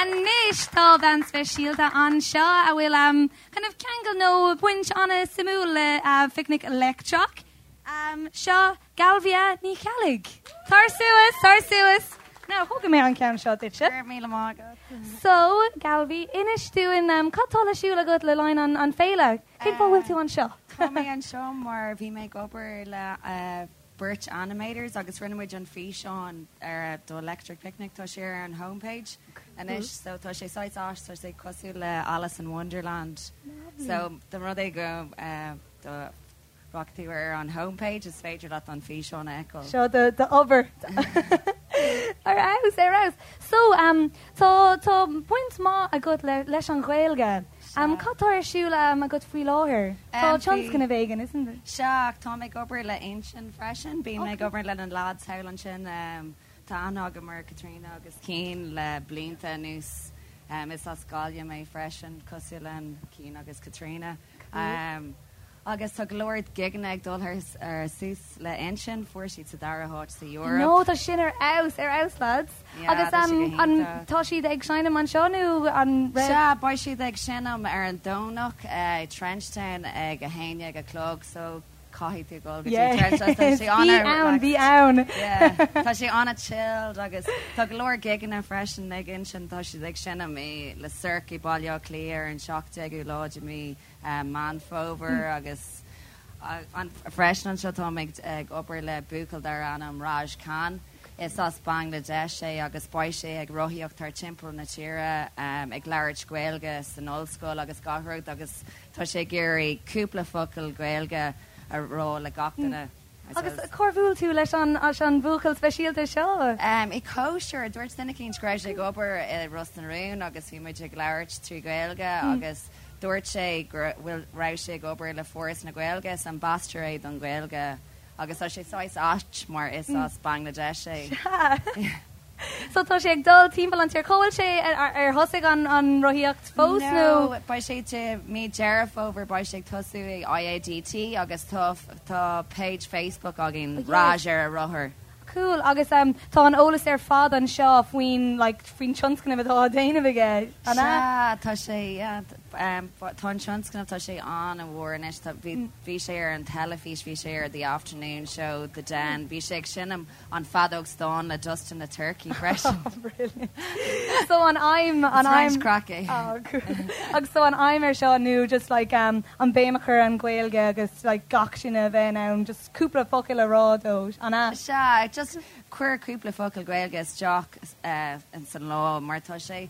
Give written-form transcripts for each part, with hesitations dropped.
Anois tá bean speisialta anseo a bhfuil um, kind of ceangal nó baint an-suimiúil le uh, Phicnic Leictreach. Um, seo Galvia Ní Cheallaigh. Tar suas, tar suas. Now, thógfaidh mé an ceann seo duitse. Go raibh míle maith agat. So, Galvi, inis dúinn um, cad tá le siúl agat le linn an, an féile? Cén fáth bhfuil tú anseo? Tá mé anseo mar bhí mé ag obair le uh, beirt animators agus rinne muid an físeán ar do Electric Picnic tá sé ar an homepage anois so tá sé saghas ait tá sé cosúil le Alice in Wonderland. So dá mba rud é go uh, do rachaidh tú ar an homepage is féidir leat an físeán a fheiceáil. Seo do do obair. Ar fheabhas, ar fheabhas. So, um, tá tá baint maith agat le leis an Ghaeilge. Um, cad tá ar siúl um, agat faoi láthair? Tá tionscnamh éigin, isn't it? Sea, tá mé ag obair le Uinseann freisin. Bím ag obair le na lads thall ansin. Um, tá aithne agam ar Caitríona agus Cian le blianta anuas. Um, is as Gaillimh mé freisin, cosúil le Cian agus Caitríona. Um, agus tá go leor gigeanna ag dul ar suas le Uinseann, fuair siad sa dara háit sa Eoraip. No, tá sin ar fheabhas, ar fheabhas lads. Yeah, Agus tá sé um, go an, hiontach. tá siad ag seinm anseo nó an raibh? Sea, beidh siad ag seinm ar an Domhnach i Trenchtown ag 11 a chlog so caithfidh tú dul go dtí Yeah. Trenchtown. Tá sé Bí ann, an-relaxed. bí ann. Yeah, tá sé an-chilled agus tá go leor gigeanna freisin ag Uinseann, tá siad ag seinm i Le Cirque i Baile Átha Cliath ar an 17ú lá de mí Meán Fómhair agus freisin anseo táim ag obair le buachaill darb ainm Raj Khan. Is as Bangladesh é agus beidh sé ag rothaíocht thar timpeall na tíre ag labhairt Gaeilge san ollscoil agus gach rud agus tá sé ag iarraidh cúpla focal Gaeilge a rá le gach duine. Agus cár bhuail tú leis an an bhuachaill speisialta seo? I cóisir, dúirt duine eicínt go raibh sé ag obair i Ros na Rún agus bhí muid ag labhairt trí Ghaeilge agus dúirt sé go bhfuil raibh sé ag obair le Foras na Gaeilge, is ambasadóir é don Ghaeilge agus tá sé saghas ait mar is as Bangladesh é. Sea. So tá sé ag dul timpeall an tír. Cá bhfuil sé ar thosaigh an an rothaíocht fós nó? No, beidh sé i mí Deireadh Fómhair beidh sé ag tosú i IADT agus tá tá page Facebook againn Raj ar a rothar. Cool agus um, tá an eolas ar fad anseo faoin like faoin tionscnamh atá á déanamh aige, an ea? Sea, tá sé yeah, um, tá an tionscnamh tá sé an-mhór anois tá bhí bhí sé ar an teilifís, bhí sé ar The Afternoon Show, The Den, bhí sé ag seinm An feadóg stáin le Dustin the Turkey freisin. Brilliant. So an aidhm, an Is roinnt aidhm. craic é. Oh, cool. Agus so an aidhm ar seo nó just like um, an béim a chur ar an Ghaeilge agus like gach duine a bheith in ann just cúpla focal a rá dó, an ea? Sea, just cuir cúpla focal Gaeilge isteach uh, ins an lá mar tá sé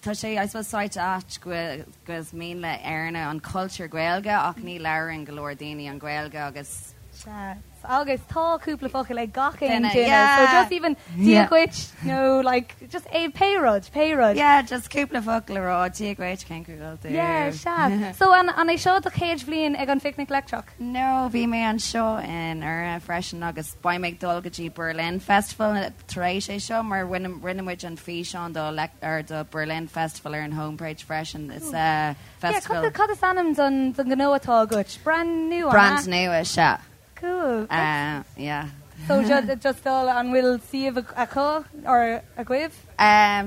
tá sé I suppose saghas ait go bhfuil go is mian le Éireannaigh an cultúr Gaeilge ach ní labhrann go leor daoine an Ghaeilge agus Sea. Agus tá cúpla focal ag gach aon Duine, duine, yeah. so just even Dia Yeah. dhuit nó like just é pé rud, pé rud. Yeah, just cúpla focal a rá, Dia dhuit, cén chaoi a bhfuil tú? Yeah, sea. So an an é seo do chéad bhliain ag an Phicnic Leictreach? No, bhí mé anseo anuraidh freisin agus beidh mé ag dul go dtí Berlin Festival tar éis é seo mar rinne rinne muid an físeán do or do Berlin Festival ar an homepage freisin. It's a Yeah, festival. cad cad is ainm don don ghnó atá agat? Brand nua, an ea? Brand nua, sea. Cool. Yeah. So just dul an bhfuil suíomh acu or agaibh?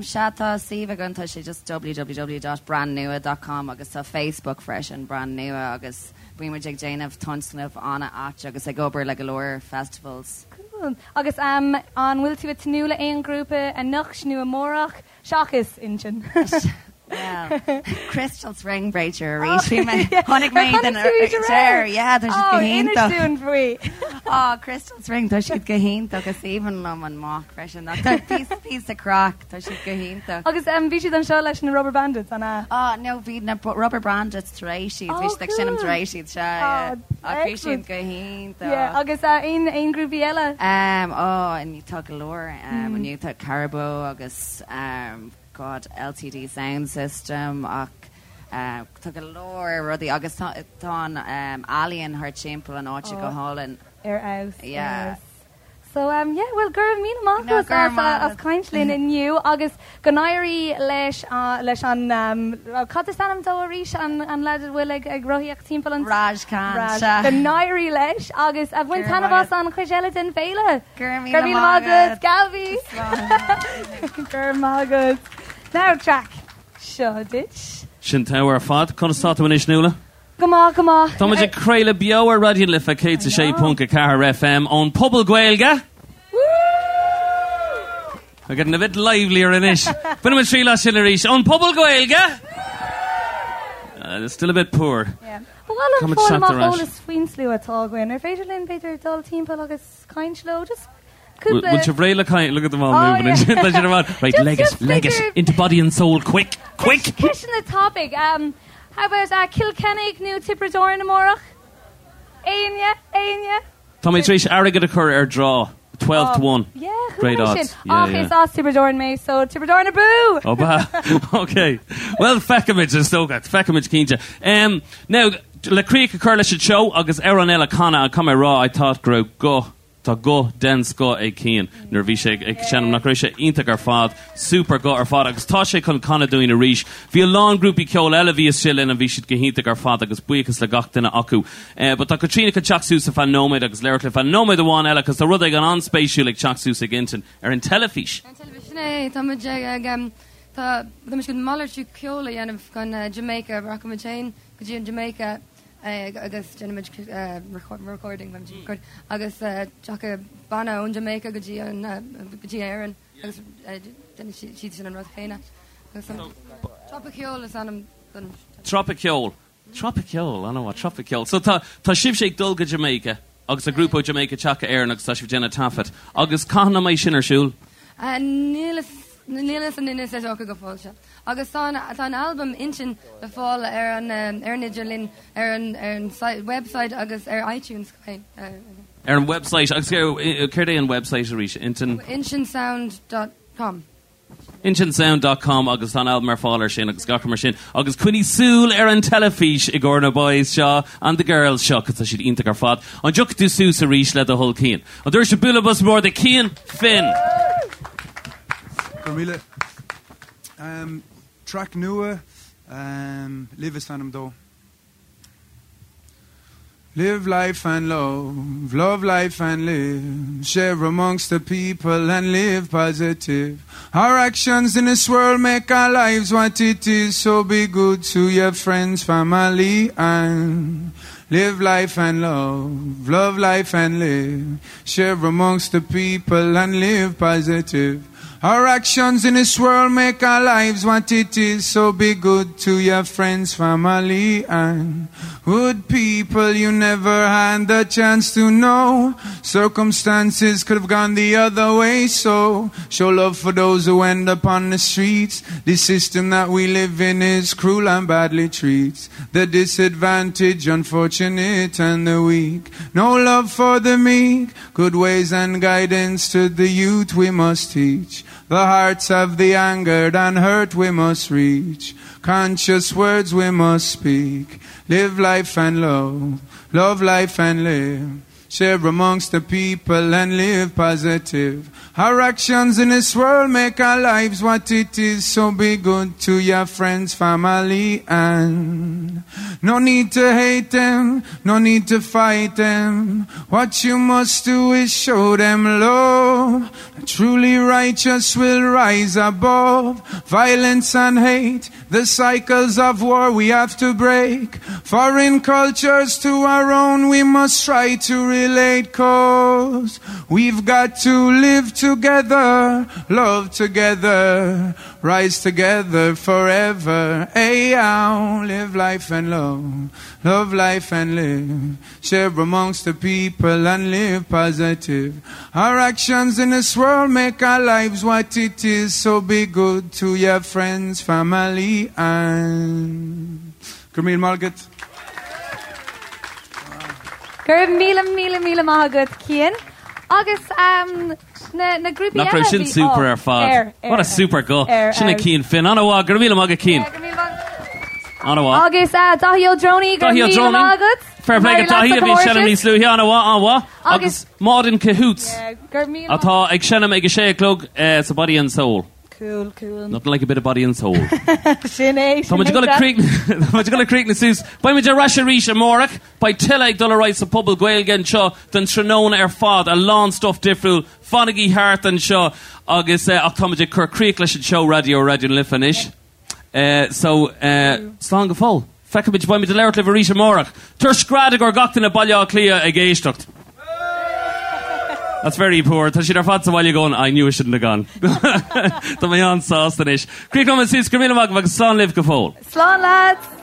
Sea tá suíomh againn tá sé just www dot brandnua dot com agus tá Facebook freisin brand nua agus bíonn muid ag déanamh tionscnamh an-ait agus ag obair le go leor festivals. Cool. Agus an bhfuil tú ag tnúth le aon ghrúpa anocht nó amárach? Seachas Uinseann. Well, Crystal Spring b'fhéidir arís. Bhí mé, chonaic mé Ar den chonaic tú iad aréir? Yeah, tá siad go Oh, inis hiontach. dúinn faoi. Oh, Crystal Spring, tá siad go hiontach. Is aoibhinn liom an mac freisin. Ach tá píosa píosa craic, tá siad go hiontach. Agus um, bhí siad anseo leis na Rubberbandits, an ea? Oh, no, bhí na Rubberbandits tar éis iad. Bhí Oh, siad ag seinm cool. tar éis iad, sea, yeah. Oh, Ach bhí siad excellent. go hiontach. Yeah, agus uh, aon, aon grúpaí eile? Um, oh, inniu tá go leor. Um, inniu tá Caribou agus um, God, LTD Sound System ach uh, tá go leor rudaí agus tá, tá an um, ealaíon thar timpeall an áite go Oh. hálainn. Ar fheabhas, ar Yeah. fheabhas. So um, yeah, well go raibh míle maith No, agat go raibh as, maith as agat. caint linn inniu agus go n-éirí leis uh, leis an um, cad is ainm dó arís an, an leaid a bhfuil ag, ag rothaíocht timpeall an Raj Khan, Raj. sea. Go n-éirí leis agus a bhain Go raibh taitneamh maith as an chuid eile den bhféile. Go raibh Go raibh míle míle maith maith agat, agat. Gabi! Slán. Go raibh maith agat. Now track seo duit. Sin togha ar fad. Conas tá tú anois, Nuala? Go maith, go maith. Tá muid ag craoladh beo ar Raidió na Life 106.4 FM ón Phuball Gaeilge. We're getting a bit livelier anois. Bainfidh muid triail as sin arís. Ón Phuball Gaeilge! Uh, still a bit poor. Yeah. Ba mhaith liom fáil amach eolas faoin slua atá againn. Ar féidir linn b'fhéidir dul timpeall agus caint leo? Just cúpla... Bhfuil sibh réidh le caint? Look at them all oh, moving. Yeah. Tá siad ar fad. Right, leg it, leg it. Into body and soul, quick, quick! Ceisteanna tapaidh. Um, how about uh, Cill Chainnigh nó Tiobraid Árann amárach? Éinne? Éinne? Tá mé tar éis airgead a chur ar draw, 12 to 1. Yeah, Great chuala mé odds. sin. Yeah, Ach, yeah. is as Tiobraid Árann mé, so Tiobraid Árann abú! Ó ba. Ok. Well, feicfimid, is dócha. Feicfimid cinnte. Um, now, le críoch a chur leis an seó agus amhrán eile a chanadh, caithfidh mé a rá, I thought go raibh guth Tá guth den scoth ag Cian nuair a bhí sé ag seinm, nach raibh sé iontach ar fad, super guth ar fad agus tá sé chun canadh dúinn arís. Bhí a lán grúpaí ceoil eile a bhí istigh linn and bhí siad go hiontach ar fad agus buíochas le gach duine acu. But tá Caitríona chun teacht suas ar feadh nóiméad agus labhairt le feadh nóiméad amháin eile cos tá rud éigin an-spéisiúil ag teacht suas ag Intinn ar an teilifís. Ar an teilifís, sin é, tá muid ag, tá, tá muid chun malartú ceoil a dhéanamh chun Jamaica, rachaimid féin go dtí an Jamaica agus déanfaimid recording agus tiocfaidh banna ón Jamaica go dtí an go dtí Éirinn agus déanfaidh siad sin an rud chéanna. Agus an Tropaiceol is ainm don Tropaiceol. Tropaiceol, an-mhaith, Tropaiceol. So tá tá sibhse ag dul go Jamaica agus tá grúpa ó Jamaica ag teacht go Éirinn agus tá sibh ag déanamh taifead. Agus cathain a mbeidh sin ar siúl? Níl níl fhios againn is dócha go fóill seo. Agus tá an tá an albam Intinn le fáil ar an ar an idirlíon, ar an ar an website agus ar iTunes chomh maith. Ar an website agus céard é an website arís? Intinn. Intinnsound dot com. Intinnsound dot com agus tá an albam ar fáil ar sin agus gach rud mar sin. Agus coinnigh súil ar an teilifís i gcomhair na boys seo and the girls seo cos tá siad iontach ar fad. An dtiocfaidh tú suas arís le do thoil Cian? An dtabharfaidh sibh bualadh bos mór do Cian Finn? Go raibh míle. Um, track nua, um, Live is ainm dó. Live life and love, love life and live. Share amongst the people and live positive. Our actions in this world make our lives what it is. So be good to your friends, family, and live life and love, love life and live. Share amongst the people and live positive. Our actions in this world make our lives what it is, so be good to your friends, family, and good people you never had the chance to know. Circumstances could have gone the other way, so show love for those who end up on the streets. The system that we live in is cruel and badly treats the disadvantaged, unfortunate, and the weak. No love for the meek, good ways and guidance to the youth we must teach. The hearts of the angered and hurt we must reach. Conscious words we must speak. Live life and love, love life and live. Share amongst the people and live positive. Our actions in this world make our lives what it is, so be good to your friends, family, and no need to hate them, no need to fight them. What you must do is show them love. The truly righteous will rise above violence and hate. The cycles of war we have to break. Foreign cultures to our own we must try to relate cause we've got to live together, love together, rise together forever. Hey, ow, live life and love, love life and live. Share amongst the people and live positive. Our actions in this world make our lives what it is, so be good to your friends, family, and Go raibh míle maith agat. Go raibh míle míle míle maith agat, Cian. Agus um, na, na grúpaí Nach eile raibh sin bhí- super oh, ar fad. ar, ar, What a super guth. ar, Sin é ar. Cian Finn. An-mhaith, go raibh míle maith agat, Cian. Yeah, go raibh míle maith. An-mhaith. Agus uh, Daithí Ó Drónaí, go Daithí raibh Ó míle Drónaí. maith agat. Fair play go Mary Daithí a bhí Lasa seinm níos luaithe, an-mhaith, an-mhaith. Agus Agus- Maude in Cahoots Yeah, go raibh míle atá ag seinm ag a sé a chlog eh, sa Body and Soul. Cool, cool. Nothing like a bit of body and soul. Sin é, Tá muid ag dul a críochnú Tá muid ag dul a críochnú suas. Beidh muid ar ais arís amárach. Beidh tuilleadh ag dul ar aghaidh sa Phuball Gaeilge anseo don tráthnóna ar fad. A lán stuff difriúil. Fanaigí thart anseo agus ach tá muid ag cur críoch leis an seó raidió Raidió na Life anois. So, slán go fóill. Feicfimid, beidh muid ag labhairt libh arís amárach. Tabhair scread i gcomhair gach duine Baile Átha Cliath ag éisteacht. That's very poor. Tá siad ar fad sa bhaile going, I knew I shouldn't have gone. Tá mé an-sásta anois. Críochnóidh muid suas, go raibh míle maith agaibh agus slán libh go fóill. Slán lads!